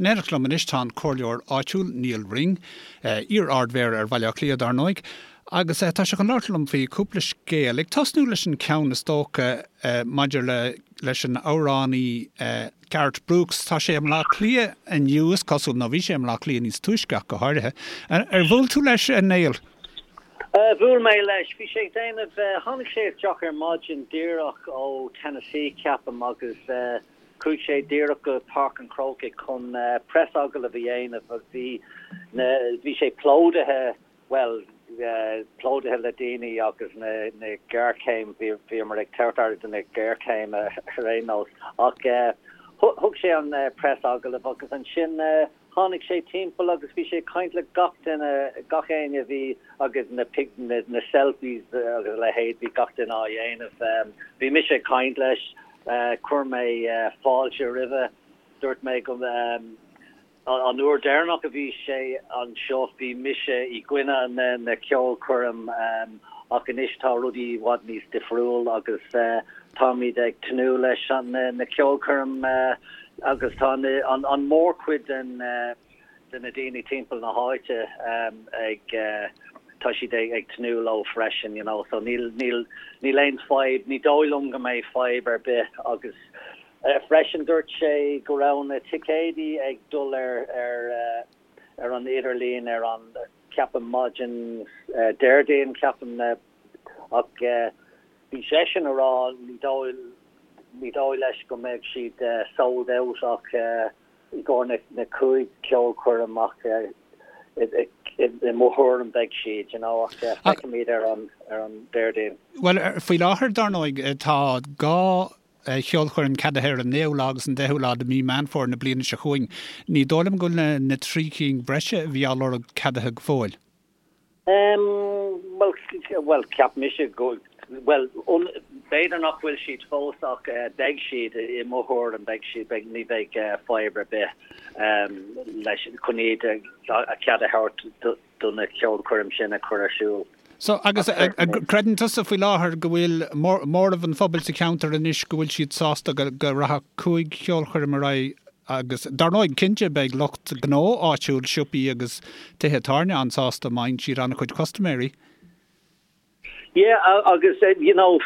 In éineacht liom anois tá an comhairleoir áitiúil Nial Ring, iar-Ard-Mhéara ar Bhaile Átha Cliath dar ndóigh, agus tá sé chun labhairt liom faoi cúpla scéal, ag tosnú leis an ceann is dócha maidir le leis an amhránaí Garth Brooks. Tá sé i mBleá Cliath inniu is cosúil, nó bhí sé i mBleá Cliath níos túisce ach go háirithe. Ar bhuail tú leis, a Néill? Bhuail mé leis. Bhí sé ag déanamh, tháinig sé isteach ar maidin díreach ó Tennessee ceapaim agus chuaigh sé díreach go Páirc an Chrócaigh chun preasagallamh a dhéanamh agus bhí na, bhí sé plódaithe, bhuel, plódaithe le daoine agus na, na géarchéim, bhí, bhíomar ag tabhairt aire do na géarchéime ar aon nós ach thug sé an preasagallamh agus ansin Tháinig sé timpeall agus bhí sé ag caint le gach duine, gach éinne a bhí agus na na selfies agus a leithéid, bhí gach duine á dhéanamh. Bhí mise ag caint leis, chuir mé fáilte roimhe, dúirt mé go an uair deireanach a bhí sé anseo bhí mise i gcoinne na na ceolchoirm ach anois tá rudaí i bhfad níos difriúil agus táimid ag tnúth leis an na ceolchoirm Agus tá an mórchuid den de na daoine timpeall na háite ag tá siad ag tnúth leo freisin you know so níl níl níl aon fadhb, ní dóigh liom go mbeidh fadhb ar bith agus freisin dúirt sé go raibh na ticéidí ag dul ar ar ar an idirlíon ar an ceapaim maidin Déardaoin ceapaim ach Bhí seisean a rá ní dóigh ní dóigh leis go mbeidh siad sold out ach i gcomhair na 5 ceolchoirm ach i mo thuairim beidh siad you know ach feicfimid ar an ar an Déardaoin. Bhuel faoi láthair dar ndóigh tá 2 cheolchoirm ceadaithe ar an 9ú lá agus an 10ú lá de mhí Meán Fómhair na bliana seo chugainn. Ní dóigh liom go bhfuil na 3 cinn breise a bhí á lorg ceadaithe go fóill. Bhuel, bhuel, cheap mise go, bhuel, b'fhéidir nach bhfuil siad fós ach beidh siad, i mo thuairim, beidh siad, beidh, ní bheidh fadhb ar bith leis, chun iad a cead a thabhairt do na ceolchoirm sin a chur ar siúl. So, agus creideann tusa faoi láthair go bhfuil móramh an phobail sa cheantar anois go bhfuil siad sásta go rachadh 5 cheolchoirm ar aghaidh Agus, dar ndóigh, cinnte, beidh lucht gnó áitiúil, siopaí agus tithe tábhairne an-sásta má fhaigheann siad an-chuid custaiméirí. Yeah, agus, you know,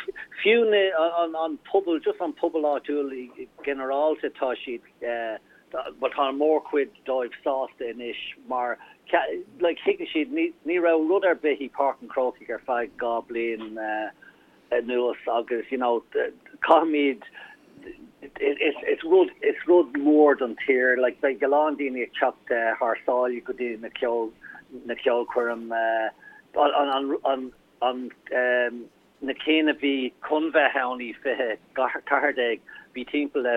fiú na, an, an pobal, just an pobal áitiúil ginearálta, tá siad, bhuel, tá an mórchuid dóibh sásta anois mar, like, thuigeann siad, ní, ní raibh rud ar bith i Páirc an Chrócaigh ar feadh 2 bliain, anuas agus you know caithfimid is is rud is rud mór don tír like beidh a lán daoine ag teacht thar sáile go dtí na ceol na ceolchoirm an an an an na cinn a bhí chun bheith ann i 2014 bhí timpeall le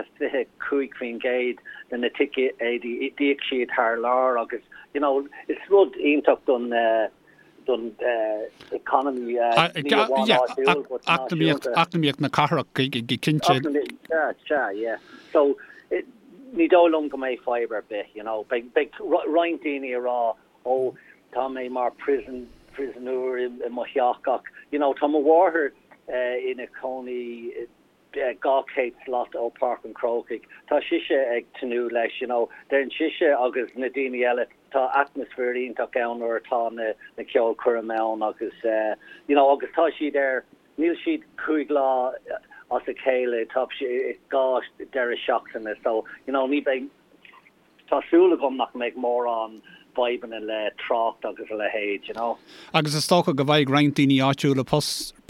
25% de na ticéidí d'íoc siad thar lear agus you know is rud iontach don don economy, ní amháin áitiúil but náisiúnta. Eacnamaíocht na cathrach go cinnte. Sea, sea, yeah. So, ní dóigh liom go mbeidh fadhb ar bith, you know. Beidh, beidh roinnt daoine ag rá, oh, tá mé mar prison, prisoner i mo theach ach, you know, tá mo mháthair ina cónaí 200 slat ó Páirc an Chrócaigh. Tá sise ag tnúth leis, you know. Deireann sise agus na daoine eile, tá atmaisféar iontach ann nuair atá na na ceolchoirm ann agus you know agus tá siad ar, níl siad 5 lá as a chéile, tá siad 2 deireadh seachtaine so you know ní bheidh, Tá súil agam nach mbeidh mórán fadhbanna le trácht agus a leithéid, you know. Agus is dócha go bhfaighidh roinnt daoine áitiúla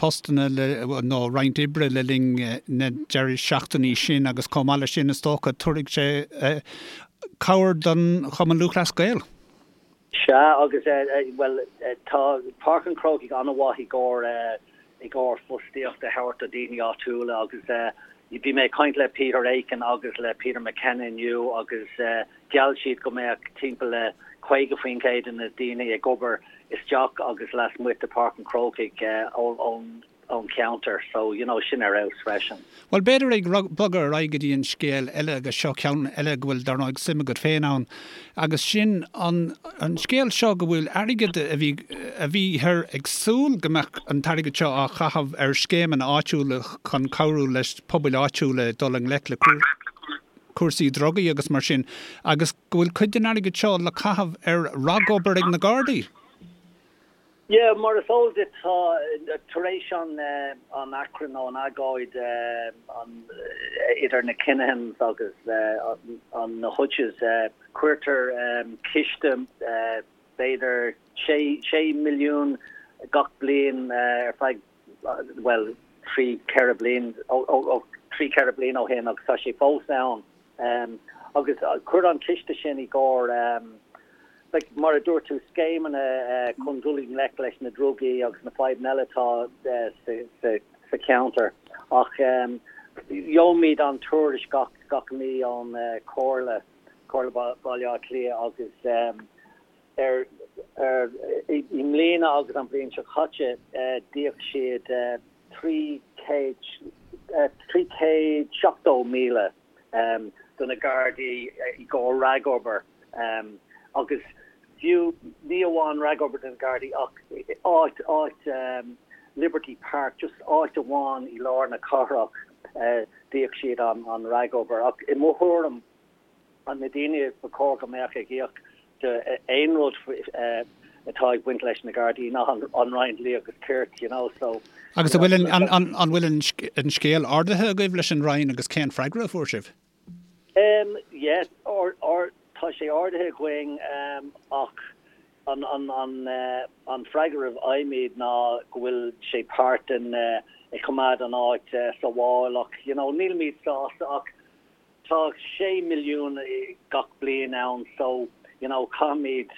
postanna le, nó roinnt oibre le linn na deireadh seachtainí sin agus chomh maith leis sin is dócha tabharfaidh sé cabhair don Chumann Lúthchleas Gael. Sea, agus, bhuel, tá Páirc an Chrócaigh an-mhaith i gcomhair, i gcomhair fostaíocht a thabhairt do daoine áitiúla agus bhí mé ag caint le Peter Aiken agus le Peter McKenna inniu agus gheall siad go mbeadh timpeall le 50% de na daoine ag obair isteach agus lasmuigh de Páirc an Chrócaigh ón ón cheantar so you know sin ar fheabhas freisin. Bhuel, b'fhéidir ag bogadh ar aghaidh go dtí an scéal eile agus seo ceann eile go bhfuil, dar ndóigh, suim agat féin ann agus sin an an scéal seo go bhfuil airgead a bhí a bhíthear ag súil go mbeadh an t-airgead seo á chaitheamh ar scéimeanna áitiúla chun cabhrú leis pobail áitiúla dul i ngleic le. cúrsaí drugaí agus mar sin, agus go bhfuil cuid den airgead seo le caitheamh ar ragobair ag na Gardaí. Yeah, mar is eol duit tá, tar éis an an achrann nó an agóid an idir na Kinahans agus an na Hutches, cuirtear ciste b'fhéidir 6 milliún gach bliain ar feadh, bhuel, 3, 4 bliain, ó 3, 4 bliain ó shin agus tá sé fós ann. Agus cuir an ciste sin i gcomhair, like, mar a dúirt tú, scéimeanna chun dul i ngleic leis na drugaí agus na fadhbanna eile atá sa cheantar. Ach gheobhaimid an tuairisc gach, gach mí ón Chomhairle, Comhairle Baile Átha Cliath agus ar, ar, i mbliana agus an bhliain seo caite d'íoc siad 300, 370,000. do na Gardaí i gcomhair ragobair agus fiú ní amháin ragobair do na Gardaí ach áit, áit Liberty Park, just áit amháin i lár na cathrach d'íoc siad an ragobair. Ach i mo thuairim, na daoine ba chóir go mbeadh ag íoc do aon rud atá ag baint leis na Gardaí ná an Roinn Dlí agus Cirt, you know, so. Agus an bhfuil an an bhfuil an scéal ardaithe agaibh leis an Roinn agus cén freagra a fuair sibh? Um yeah, tá sé ardaithe againn ach an an an an freagra a fhaighimid ná go bhfuil sé páirt den ag coimeád an áit sábháil ach you know nílimid sásta ach Tá 6 milliún gach bliain ann so you know caithfimid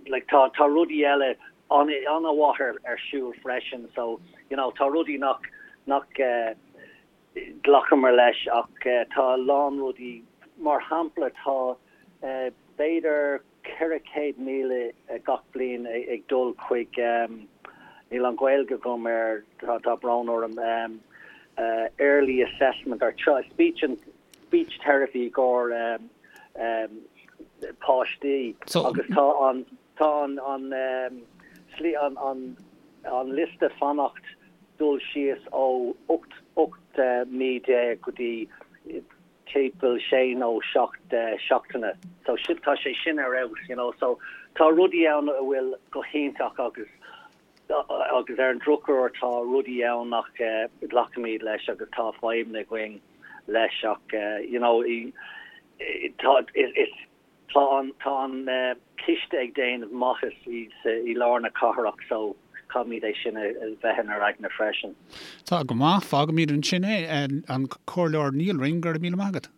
like tá tá rudaí eile an-mhaith ar ar siúl freisin so you know tá rudaí nach nach glacamar leis ach tá a lán rudaí mar shampla tá b'fhéidir 400,000 gach bliain ag dul chuig níl an Ghaeilge agam air tá tá brón orm early assessment or speech and speech therapy i gcomhair páistí agus tá an tá an an slí an an an liosta fanacht dul síos ó 18 18 mí go dtí timpeall sé nó seacht seachtaine. So sin, tá sé sin ar fheabhas, you know. So tá rudaí ann a bhfuil go hiontach agus agus ar an drochuair tá rudaí ann nach nglacaimid leis agus tá fadhbanna againn leis ach you know tá is tá an tá an ciste ag déanamh maitheas i i lár na cathrach so caithfimid é sin a bheith inár aigne freisin. Tá go maith, fágfaimid ansin é. An Comhairleoir Nial Ring, go raibh míle maith agat.